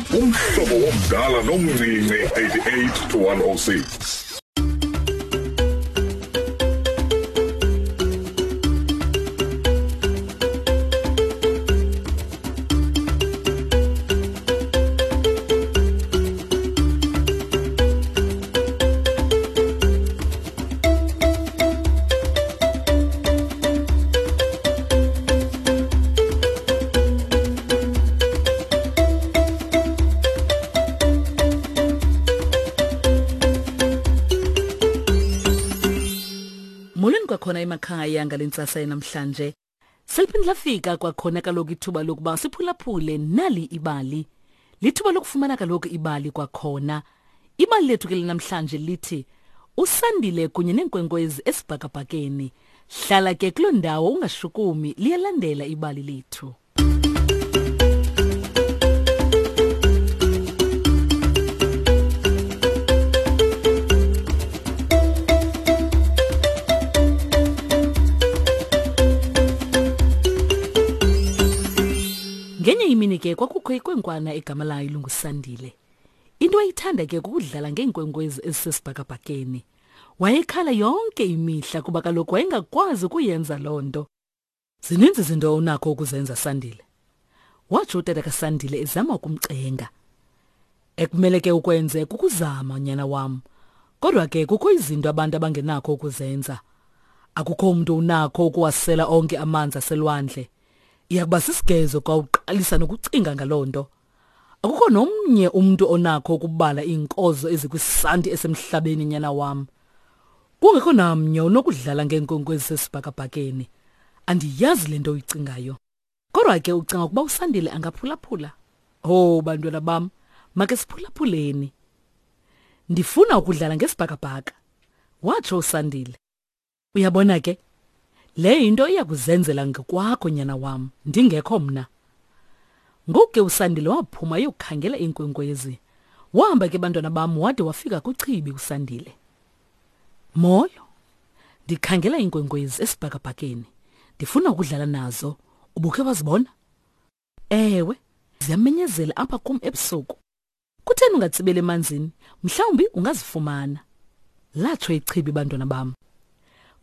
Umhlobo womdala nomncinci 88 to 106. Molweni kwakhona emakhaya ngale ntsasa yanamhlanje. Seliphinde lafika kwakhona kaloku ithuba lokuba siphulaphule nali ibali. Lithuba lokufumana kaloku ibali kwakhona. Ibali lethu ke linamhlanje lithi uSandile kunye neenkwenkwezi esibhakabhakeni. Hlala ke kuloo ndawo ungashukumi liyalandela ibali lethu. Ngenye imini ke kwakukho ikwenkwana egama layo lunguSandile. Into ayithanda ke kukudlala ngeenkwenkwezi ezisesibhakabhakeni. Wayekhala yonke imihla kuba kaloku wayengakwazi ukuyenza loo nto. Zininzi izinto onakho ukuzenza Sandile. Watsho utata kaSandile ezama ukumcenga. Ekumele ke ukwenze kukuzama nyana wam. Kodwa ke kukho izinto abantu abangenakho ukuzenza. Akukho umuntu unakho ukuwasela onke amanzi aselwandle. Iyakuba sisigezo xa uqalisa nokucinga ngaloo nto. Akukho nomnye umntu onakho ukubala iinkozo ezikwisanti esemhlabeni nyana wam. Kungekho namnye unokudlala ngeenkwenkwezi sesibhakabhakeni. Andiyazi le nto uyicingayo. Kodwa ke ucinga ukuba uSandile angaphulaphula? Oh bantwana bam, make siphulaphuleni. Ndifuna ukudlala ngesibhakabhaka, watsho uSandile. Uyabona ke, le yinto iya kuzenzela ngokwakho nyana wam, ndingekho mna. Ngoku ke uSandile waphuma eyokukhangela iinkwenkwezi. Wahamba ke bantwana bam wade wafika kuchibi uSandile. Molo, ndikhangela iinkwenkwezi esibhakabhakeni. Ndifuna ukudlala nazo. Ubukhe wazibona? Ewe, ziyamenyezela apha kum ebusuku. Kutheni ungatsibeli emanzini? Mhlawumbi ungazifumana. Latsho ichibi bantwana bam.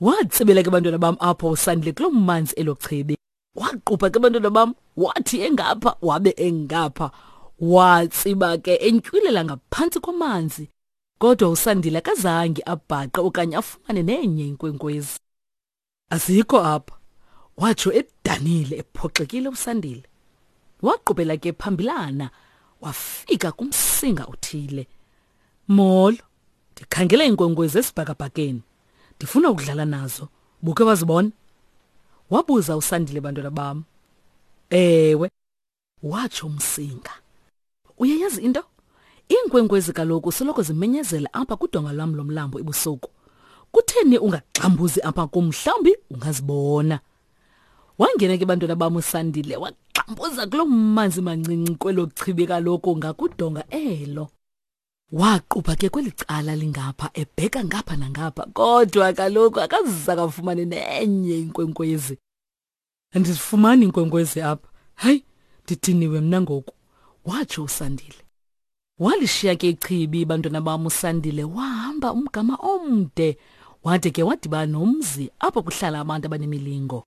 Watsibela ke bantwana bam apho uSandile kuloo manzi elo chibi. Waqupha ke bantwana bam, wathi engapha wabe engapha. Watsiba ke entyilela ngaphantsi kwamanzi. Kodwa uSandile akazange abhaqe okanye afumane nenye inkwenkwezi. Azikho apha, watsho edanile ephoxekile uSandile. Waqubela ke phambilana wafika kumsinga othile. Molo, ndikhangela iinkwenkwezi esibhakabhakeni. Ndifuna ukudlala nazo. Buke wazibona? Wabuza uSandile bantwana bam. Ewe, watsho umsinga. Uyayazi into? Iinkwenkwezi kaloku soloko zimenyezela apha kudonga lwam lomlambo ebusuku. Kutheni ungagxambuzi apha kum mhlawumbi ungazibona. Wangena ke bantwana bam uSandile wagxambuza kuloo manzi mancinci kwelo chibi kaloku ngakudonga elo. Waqupha ke kweli cala lingapha ebheka ngapha nangapha kodwa kaloku akazisakafumane nenye inkwenkwezi. Andizifumani iinkwenkwezi apha. Hayi, ndidiniwe mna ngoku, watsho uSandile. Walishiya ke ichibi bantwana bam uSandile wahamba umgama omde wade ke wadibana nomzi apho kuhlala abantu abanemilingo.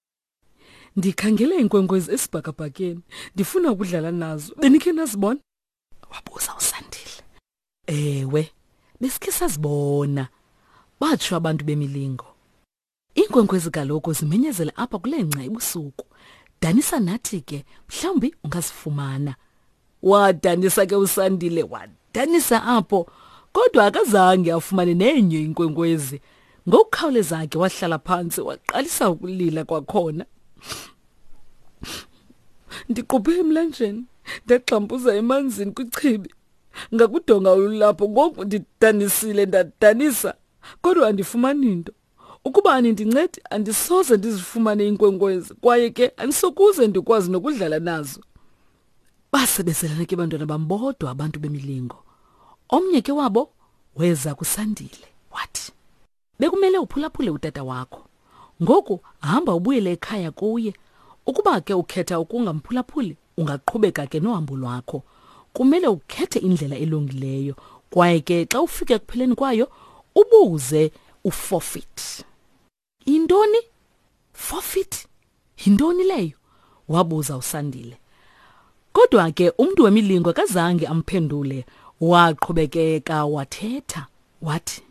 Ndikhangele iinkwenkwezi esibhakabhakeni, ndifuna ukudlala nazo. Benikhe nazibona? Wabuza uSandile. Ewe, besikhe sazibona, batsho abantu bemilingo. Iinkwenkwezi kaloku zimenyezela apha kule ngca ebusuku. Danisa nathi ke, mhlawumbi ungazifumana. Wadanisa ke uSandile, wadanisa apho, kodwa akazange afumane nenye inkwenkwezi. Ngokukhawuleza ke wahlala phantsi waqalisa ukulila kwakhona. Ndiquphe emlanjeni, ndagxampuza emanzini kwichibi. Ngakudonga olulapho ngoku ndidanisile ndadanisa, kodwa andifumani nto. Ukuba anindincedi andisoze ndizifumane iinkwenkwezi kwaye ke andisokuze ndikwazi nokudlala nazo. Basebezelana ke bantwana bam bodwa abantu bemilingo. Omnye ke wabo weza kuSandile wathi, Bekumele uphulaphule utata wakho. Ngoku hamba ubuyele ekhaya kuye. Ukuba ke ukhetha ukungamphulaphuli, ungaqhubeka ke nohambo lwakho. kumele ukhethe indlela elungileyo kwaye ke xa ufika ekupheleni kwayo ubuze uforfeit. Intoni? Forfeit? Yintoni leyo? wabuza uSandile. Kodwa ke umntu wemilingo akazange amphendule, waqhubekeka wathetha wathi,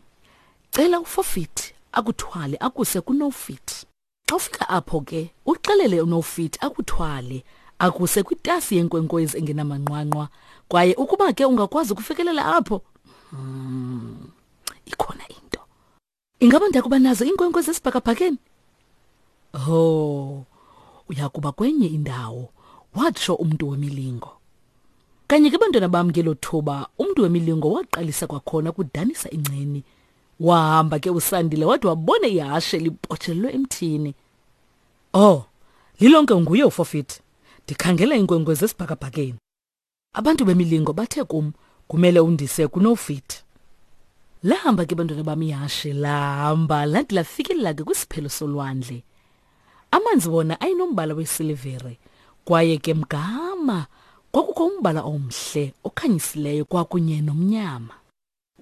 Cela uForfeit akuthwale akuse kuNofit. Xa ufika apho ke, uxelele uNofit akuthwale akuse kwitasi yenkwenkwezi engenamanqwanqwa kwaye ukuba ke ungakwazi ukufikelela apho, ikhona into. Ingaba ndiyakuba nazo iinkwenkwezi esibhakabhakeni? Oh, uyakuba kwenye indawo, watsho umntu wemilingo. Kanye ke bantwana bam ngelo thuba, umntu wemilingo waqalisa kwakhona ukudanisa ingceni. Wahamba ke uSandile wade wabona ihashe libotshelelwe emthini. Oh, lilonke nguye uFofit. Ndikhangela iinkwenkwezi esibhakabhakeni. Abantu bemilingo bathe kum kumele undise kuNofit. Lahamba ke bantwana bam ihashe lahamba lade lafikelela ke kwisiphelo solwandle. Amanzi wona ayenombala wesilivere kwaye ke mgama kwakukho umbala omhle okhanyisileyo kwakunye nomnyama.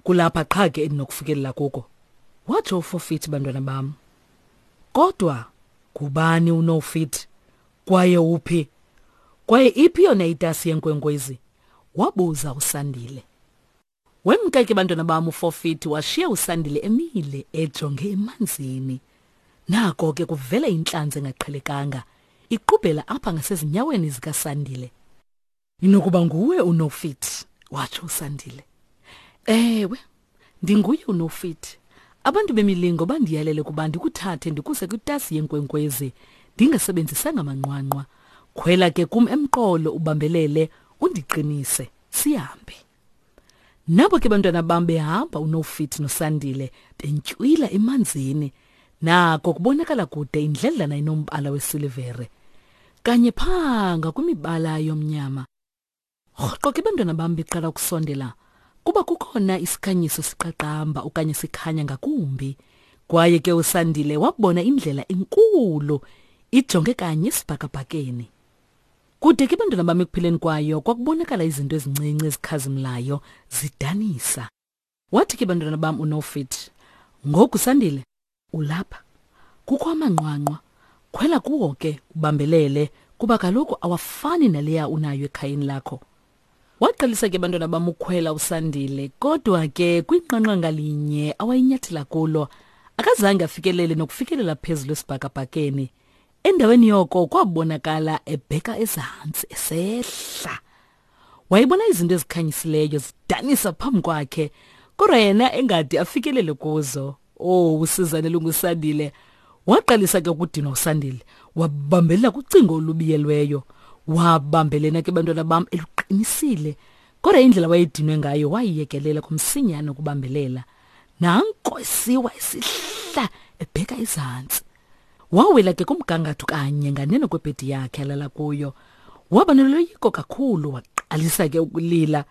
Kulapha qha ke endinokufikelela kuko, watsho uFofit bantwana bam. Kodwa ngubani uNofit kwaye uphi? Kwaye iphi yona itasi yenkwenkwezi? Wabuza uSandile. Wemka ke bantwana bam uFofit washiya uSandile emile ejonge emanzini. Nako ke kuvela intlanzi engaqhelekanga iqubhela apha ngasezinyaweni zikaSandile. Inokuba nguwe uNofit, watsho uSandile. Ewe, ndinguye uNofit. Abantu bemilingo bandiyalele ukuba ndikuthathe ndikuse kwitasi yenkwenkwezi ndingasebenzisanga manqwanqwa. Khwela ke kum emqolo ubambelele undiqinise sihambe. Nabo ke bantwana bam behamba uNofit noSandile bentywila emanzini. Nako kubonakala kude indledlana inombala wesilivere. Kanye phaa ngakwimibala yomnyama. Rhoqo ke bantwana bam beqala ukusondela kuba kukhona isikhanyiso siqaqamba okanye sikhanya ngakumbi. Kwaye ke uSandile wabona indlela enkulu ijonge kanye esibhakabhakeni. Kude ke bantwana bam ekupheleni kwayo kwakubonakala izinto ezincinci ezikhazimlayo zidanisa. Wathi ke bantwana bam uNofit, ngoku Sandile ulapha. Kukho amanqwanqwa. Khwela kuwo ke ubambelele kuba kaloku awafani naleya unayo ekhayeni lakho. Waqalisa ke bantwana bam ukhwela uSandile kodwa ke kwinqanqa ngalinye awayinyathela kulo akazange afikelele nokufikelela phezulu esibhakabhakeni. Endaweni yoko kwabonakala ebheka ezantsi esehla. Wayebona izinto ezikhanyisileyo zidanisa phambi kwakhe, kodwa yena engade afikelele kuzo. Oh, usizane lunguSandile. Waqalisa ke ukudinwa uSandile, wabambelela kucingo olubiyelweyo. Wabambelena ke bantwana bam eluqinisile. Kodwa indlela wayedinwe ngayo wayiyekelela kumsinyane ukubambelela. Nanko esiwa esihla ebheka ezantsi. Wawela ke kumgangatho kanye nganeno kwebhedi yakhe alala kuyo. Waba noloyiko kakhulu waqalisa ke ukulila.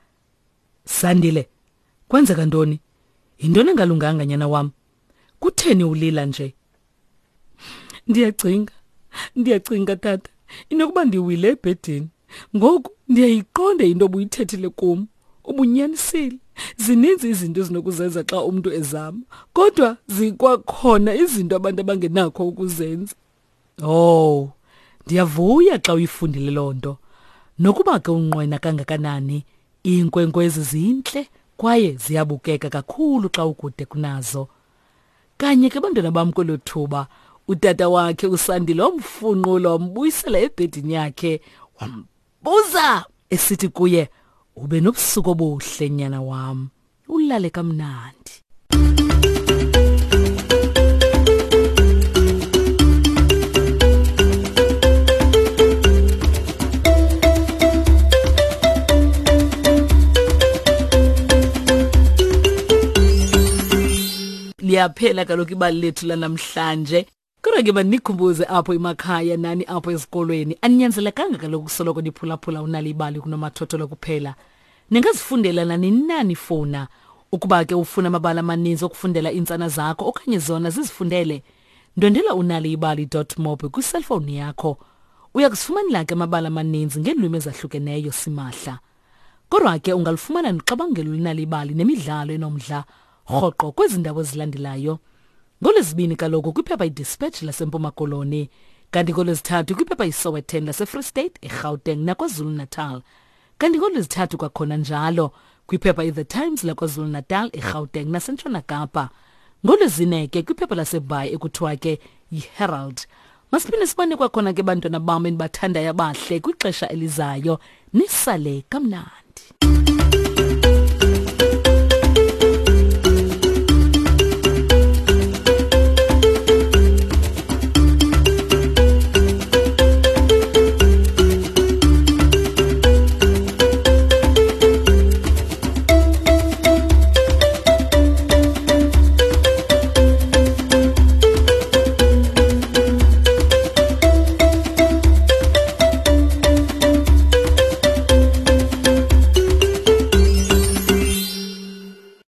Sandile, kwenzeka ntoni? Yintoni engalunganga nyana wam? Kutheni ulila nje? Ndiyacinga, ndiyacinga tata, inokuba ndiwile ebhedini. Ngoku ndiyayiqonda into obuyithethile kum. Ubunyanisile. Zininzi izinto ezinokuzenza xa umntu ezama, kodwa zikwakhona izinto abantu abangenakho ukuzenza. Oh, ndiyavuya xa uyifundile loo nto. Nokuba ke unqwena kangakanani, iinkwenkwezi zintle kwaye ziyabukeka kakhulu xa ukude kunazo. Kanye ke bantwana bam kwelo thuba, utata wakhe uSandile wamfunqula wambuyisela ebhedini yakhe wambuza esithi kuye, ube nobusuku obuhle nyana wam, ulale kamnandi. Liyaphela kaloku ibali lethu lanamhlanje. Kodwa ke mandikhumbuze apho emakhaya nani apho ezikolweni, aninyanzelekanga kaloku kusoloko niphulaphula uNal'ibali kunomathotholo kuphela. Ningazifundela nanini na nifuna. Ukuba ke ufuna amabali amaninzi okufundela iintsana zakho okanye zona zizifundele, ndwendwela unaliyibali.mobi kwiselfowuni yakho. Uya kuzifumanela ke amabali amaninzi ngeelwimi ezahlukeneyo simahla. Kodwa ke ungalufumana noxabangelo lunalibali nemidlalo enomdla rhoqo kwezi ndawo zilandelayo. NgoLwezibini kaloku kwiphepha iDispatch laseMpuma Koloni, kanti ngoLwezithathu kwiphepha iSowetan laseFree State, eGauteng naKwaZulu-Natal. Kanti ngoLwezithathu kwakhona njalo kwiphepha iThe Times laKwaZulu-Natal, eGauteng naseNtshona Kapa. NgoLwezine ke kwiphepha laseBhayi ekuthiwa ke yiHerald. Masiphinde sibone kwakhona ke bantwana bam endibathandayo abahle kwixesha elizayo. Nisale kamnandi.